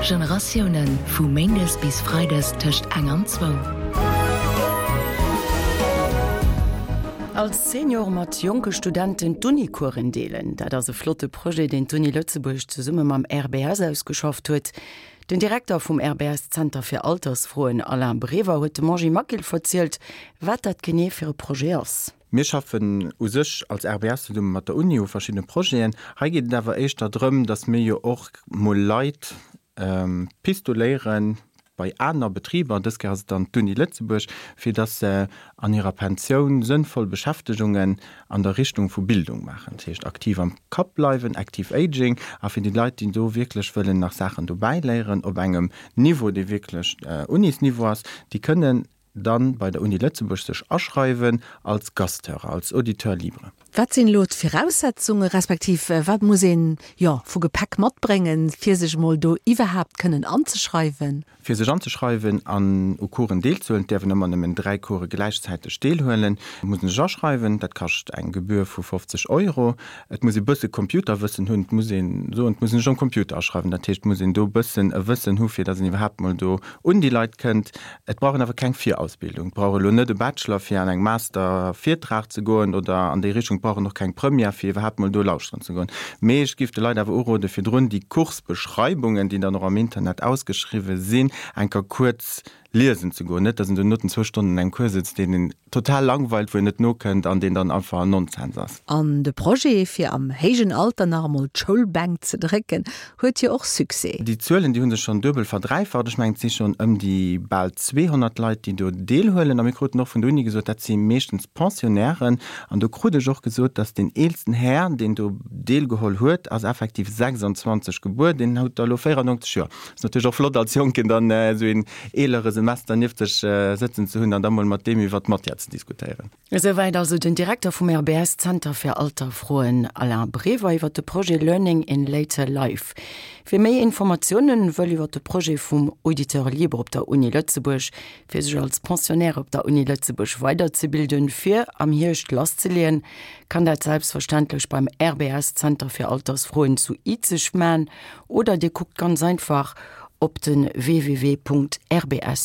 Generatiounen, vu méindes bis freides tëscht eng an zwou. Als Senior mat jonke Studenten d'Uni-Coursen deelen, dat ass e flotte Projet, deen d'Uni Lëtzebuerg zesumme mam RBS ausgeschafft huet. Den Direkter vum RBS Zenter fir Altersfroen, Alain Brever, huet dem Angie Maquil verzielt, wat dat genee fir e Projet ass. Mir schaffen u sech als RBS zesumme mat der Uni u verschiddene Projeten. Hei geet et awer éischter drëm, datt mir jo och mol Leit pistoléiere bei aner Betriber, dës Kéier ass et dann d'Uni Lëtzebuerg, fir datt se an hirer Pensioun sënnvoll Beschäftegungen an der Richtung vu Bildung maachen. Dat heescht aktiv am Kapp bleiwen, active aging, a fir déi Leit, déi do wierklech wëllen nach Saachen dobäi léieren op engem Niveau, dee wierklech Unisniveau ass, déi kënnen dann bei der Uni Lëtzebuerg sech aschreiwen als Gasthörer, als Auditeur libre. Wat sinn elo d'Viraussetzungen, respektiv wat muss een, jo, vu Gepäck matbréngen, fir sech emol do iwwerhaapt kënnen anzeschreiwen? Fir sech anzeschreiwen an u Coursen deelzehuelen, et däerf een ëmmer nëmmen 3 Course gläichzäiteg deelhuelen, muss een sech aschreiwen. Dat kascht eng Gebühr vu 50 Euro. Et muss ee bësse Computerwëssen hunn, et muss een soen, et muss een sech um Computer aschreiwen, dat heescht, et muss een do bëssen e Wëssen hu fir datt een iwwerhaapt mol do un déi Leit kënnt. Et brauch een awer keng Virausbildung. Et brauch elo net e Bachelor fir an engem Master Virtrag ze goen oder an déi Richtung. Et brauch een och keng Première fir iwwerhaapt mol do lauschteren ze goen. Mee ech géif de Leit awer urode virdrun déi Coursbeschreibungen, déi dann och am Internet ausgeschriwwen sinn, eng Kéier kuerz liesen ze goen. Net datt een dono den zwou Stonnen an engem Cours sëtzt, deen een total langweilt, wou een net nokënnt an deen dann einfach Nonsens ass. An de Projet, fir am héijen Alter nach emol d'Schoulbänk ze drécken, huet jo och Succès. Déi Zuelen, déi hu sech schonn duebel verdräifacht. Ech mengen, et si schonn ëm déi bal 200 Leit, déi do deelhuelen. A mir kruten och vun der Uni gesot, dat si meeschtens Pensionnairen. An do krut ech och gesot, datt deen eelsten Här, deen do deelgeholl huet, ass effektiv 26 gebuer, deen huet der elo 94 Joer. Ass natierlech och flott als Jonken dann esou een eelere Semester nieft sech sëtzen ze hunn an da mol mat deem iwwer d'Matière ze diskutéieren. Esouwäit also den Direkter vum RBS Zenter fir Alterfroen Alain Brever iwwer de Projet Learning in Later Life. Wie méi Informatiounen wëll iwwer de Projet vum Auditeur libre op der Uni Lëtzebuerg, fir sech als Pensionnaire op der Uni Lëtzebuerg weiderzebilden, fir am Hierscht lasszeleeën, kann dat selbstverständlech beim RBS Zenter fir Altersfroen zu Izeg man oder dir kuckt ganz einfach op de www.rbs.lu.